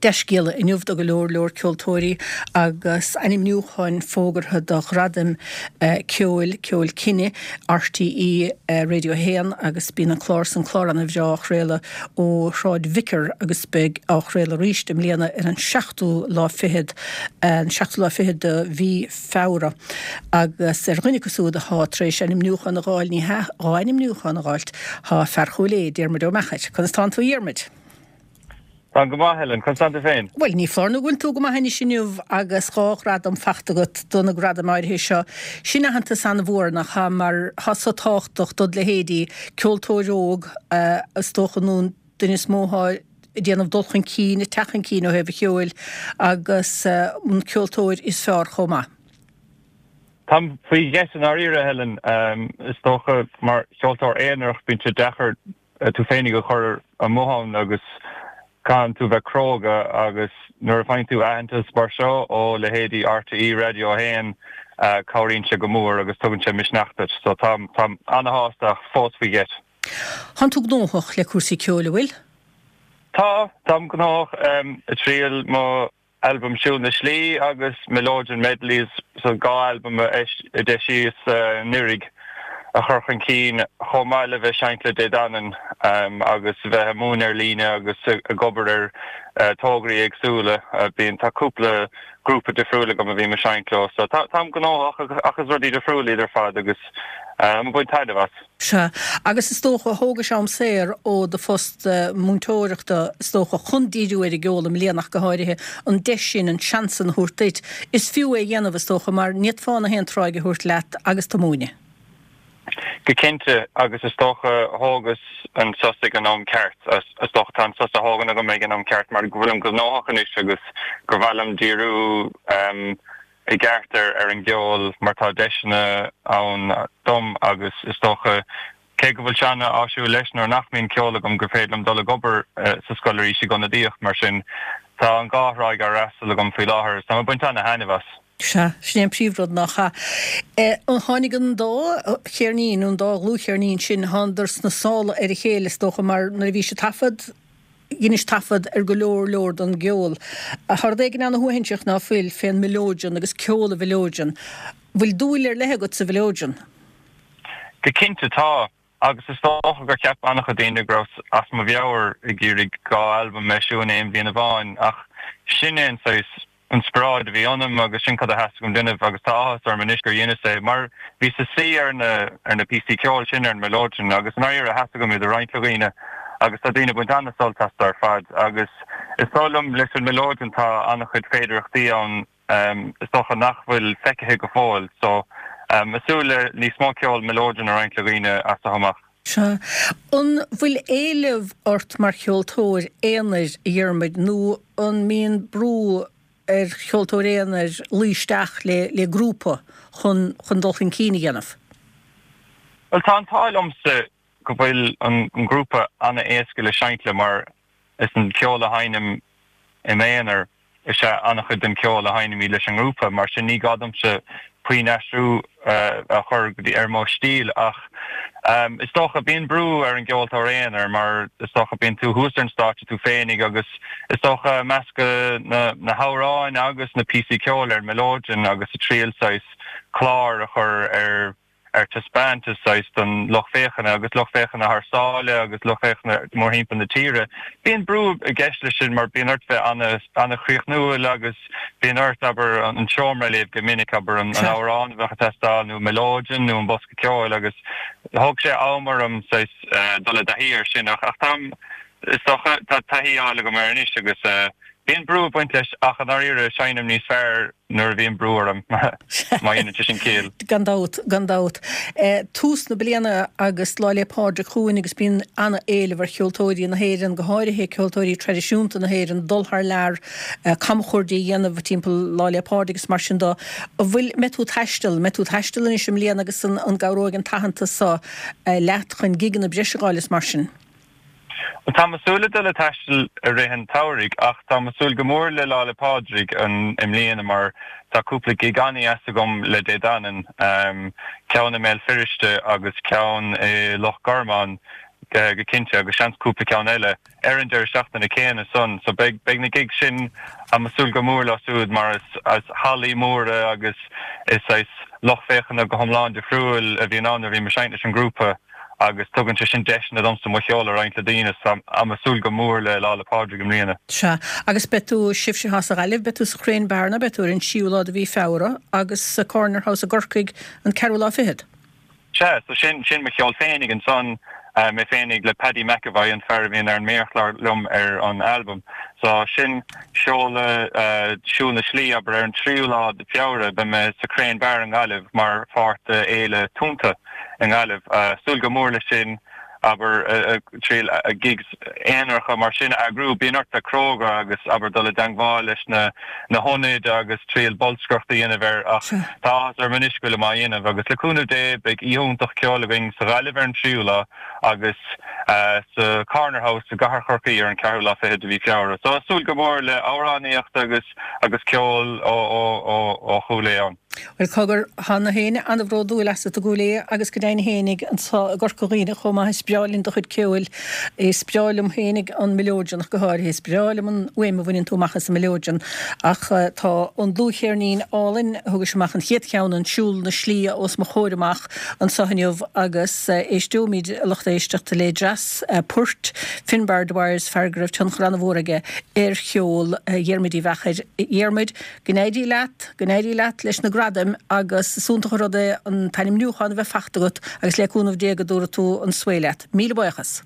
Dea-scéala inniu do go leor leor ceoltóirí agus ainmniúcháin fógartha do Ghradaim Ceoil, Ceol Cine, RTÉ Radio 1 agus bíonn an clár san, clár ana bhreá á chraoladh ó Shráid Vicar agus beidh á chraoladh arís i mbliana ar an seachtú lá fichead, an seachtú lá fichead de mhí Feabhra. Agus ar dhuine acu siúd athá tar éis ainmniúchán a dh'fháil, ní hea, dhá ainmniúchán a dh'fháilt, thá fear Chúil Aodha, Diarmuid Ó Meachair. Conas tánn tú a Dhiarmuid? Táim go maith, Helen. Conas tánn tú féin? Bhuel, ní foláir nó go bhfuil tú go maith anois inniu agus dhá ghradam fachta agat do na gradaim áirithe seo. Sin aitheantas an-mhór, nach ea, mar thá so tábhachtach dod leithéidí, ceoltóir óg, is dócha, nó an duine is mó athá ag déanamh dul chun cinn, ag teacht chun cinn ó thaobh an cheoil, agus an ceoltóir is fearr chomh maith. Táim faoi gheit i ndáiríre, Helen. Is dócha, mar cheoltóir aonarach, bíonn sé deacair tú féinig a chur amuigh ann agus caitheann tú bheith cróga agus nuair a faigheann tú aitheantas mar seo ó leithéidí RTÉ Radio 1 cabhraíonn sé go mór agus tugann sé misneach duit. So táim táim ana-shásta ach fós faoi gheit. Tánn tú gnóthach le cúrsaí ceoil, an bhfuil? Tá, táim gnóthach. Ag triail mo albam Siúl na Slí agus Mileoidean Medleys, so 2 albam a d'eisíos anuraidh, a chur chun cinn, chomh maith le bheith seinnt le Dé Danann agus bheith ag múineadh ar líne agus ag obair ar tograí éagsúla. Bíonn, tá cúpla grúpa difriúil agam a bhím ag seinnt leo, so táim gnóthach ach is rudaí difriúla iad ar fad agus táim ag baint taitneamh as. Sea, agus is dócha, thógais am saor ó do phost múinteoireachta, is dócha, chun díriú ar an gceol i mbliana ach go háirithe, an deis sin, an seans sin a thabhairt duit. Is fiú é a dhéanamh, is dócha, mar ní fhéadfá na haon tráigh a thabhairt leat agus tú ag múineadh. Go cinnte, agus is dócha, thógas an sos ag an am ceart. Is dócha, tá an sos á thógaint agam ag an am ceart mar go bhfuilim gnóthach anois agus gur mhaith liom díriú, i gceart ar an gceol mar tá deiseanna ann dom agus is dócha, cé go bhfuil sé an-áisiúil leis nuair nach mbíonn ceol agam gur féidir liom dul ag obair sa scoil arís ag ionadaíocht mar sin tá an dhá thráigh á fhreastal agam faoi láthair agus táim ag baint ana-thaitneamh as. Sea, sin é an príomhrud nach ea? Tháinig an dá cheirnín, an dá dhlúthcheirnín sin, thánadar sna sála ar a chéile is dócha mar nuair a bhís ag taifead, Dheinis taifead ar go leor leor don gceol. Tá rud éigin ana-shuaithinseach ná fuil fén mileoidean agus ceol an mhileoidean. Bhfuil dúil ar leith agat sa mhileoidean? Go cinnte tá, agus is dócha gur cheap an-chuid daoine go rabhas as mo mheabhair ag iarraidh 2 albam a eisiú in aon bhliain amháin, ach sin é an saghas inspioráid a bhí ionam agus sin cad a theastaigh uaim déanamh agus tá áthas orm anois gur dheineas é mar bhíos ag suí ar na ar na píosaí ceoil sin ar an mileoidean agus i ndáiríre theastaigh uaim iad a roinnt le dhaoine agus tá daoine ag baint an-sult astu ar fad agus is dóigh liom leis an mileoidean tá an-chuid féidearthachtaí ann is dócha nach bhfuil feicthe go fóill so ag súil le níos mó ceol mileoidean a roinnt le dhaoine as seo amach. Sea. An bhfuil éileamh ort mar cheoltóir aonair, a Dhiarmuid, nó an mbíonn brú ar cheoltóir aonair luí isteach le le grúpa chun chun dul chun cinn a dhéanamh? Bhuel, tá an t-ádh liomsa go bhfuil an grúpa an-éasca le seinnt le mar is an ceol a sheinnim i m'aonar is ea an-chuid den cheol a sheinnimid leis an ngrúpa, mar sin ní gá domsa puinn aistriú a chur go dtí ar mo stíl ach is dócha bíonn brú ar an gceoltóir aonair mar is dócha bíonn tú thuas ar an stáitse tú féinig agus is dócha meascadh na na hamhráin agus na píosaí ceoil ar an mileoidean agus ag triail saghas clár a chur ar ar taispeántas saghas don lucht féachana agus lucht féachana thar sáile agus lucht féachana mórthimpeall na tíre. Bíonn brú i gceist leis sin mar bíonn ort bheith an-chríochnúil agus bíonn ort, abair, an seomra a léamh go minic, abair, an amhrán a bheadh ag teastáil nó mileoidean nó an bosca ceoil agus thóg sé am orm saghas dul i dtaithí air sin ach táim, is dócha, tá taithí á fháil agam air anois agus bíonn brú ag baint leis ach i ndáiríre seinnim níos fearr nuair a bhíonn brú orm, má dhéanann sé sin ciall. Gan dabht, gan dabht. Tús na bliana agus Lá 'le Pádraig chugainn agus bíonn an-éileamh ar cheoltóirí na hÉireann, go háirithe ceoltóirí traidisiúnta na hÉireann, dul thar lear, camchuaird a dhéanamh timpeall Lá 'le Pádraig agus mar sin de. An bhfuil, mbeidh tú ag taisteal, mbeidh tú ag taisteal anois i mbliana agus an gcabhróidh an t-aitheantas seo leat chun gigeanna breise a fháil is mar sin? Bhuel, táim ag súil le dul ag taisteal i rith an tsamhraidh ach táim ag súil go mór le Lá 'le Pádraig i mbliana mar tá cúpla gig an-deas agam le Dé Danann, ceann i mBéal Feirste agus ceann i Loch Garman. go cinnte agus seans cúpla ceann eile ar an deireadh seachtaine céanna san. So beidh beidh na gigs sin, táim ag súil go mór leo siúd mar is is hallaí móra agus is saghas lucht féachana go hiomlán difriúil a bhíonn ann nuair a bhím ag seinnt leis an ngrúpa agus tugann sé sin deiseanna domsa mo cheol a roinnt le daoine so táim ag súil go mór le Lá 'le Pádraig i mbliana. Sea, agus beidh tú, sibhse atá sa Ghaillimh, beidh tú sa Chrane Bar nó beidh tú ar an tríú lá de mhí Feabhra agus sa Corner House i gCorcaigh an ceathrú lá fichead. Sea, so sin, sin mo cheol féinig ansan, mé féinig le Paddy McEvoy, an fear a bhíonn ar an méarchlár liom ar an albam. So sin seoladh Siúl na Slí, abair, ar an tríú lá de Feabhra, beidh mé sa Crane Bar i nGaillimh mar pháirt de Fhéile Tonnta i nGaillimh. Súil go mór leis sin. abair, triail gigs aonaracha mar sin a eagrú. Bíonn ort bheith cróga agus, abair, dul i dteangmháil leis na na hionaid agus triail bolscaireacht a dhéanamh air ach tá áthas orm anois go bhfuilim á dhéanamh agus le cúnamh Dé beidh oíche iontach ceoil againn sa Ghaillimh ar an tríú lá agus sa Corner House i gCathair Chorcaí ar an ceathrú lá fichead de mhí Feabhra. So súil go mór le amhránaíocht agus agus ceol ó ó ó ó Chúil Aodha ann. Bhuel, cogar, tá gach éinne an-bhródúil asat i gCúil Aodha agus go deimhin fhéinig anso i gCorca Dhuibhne chomh maith. Is breá linn do chuid ceoil. Is breá liom fhéinig an mileoidean ach go háirithe. Is breá liom an fhuaim a bhaineann tú amach as an mileoidean. Ach tá an dlúthcheirnín álainn, a thugais amach an chéad cheann, an Siúl na Slí, os mo chomhair amach anso inniu agus éisteoimid, a lucht éisteachta, le dreas poirt Finbar Dwyer, fear go raibh tionchar an-mhór aige ar cheol Dhiarmuid Uí Mheachair. Dhiarmuid, Go n-éirí leat, go n-éirí leat leis na gradaim agus is iontach an rud é an t-ainmniúchán a bheith fachta agat agus le cúnamh Dé go dtabharfaidh tú an svae leat. Míle buíochas.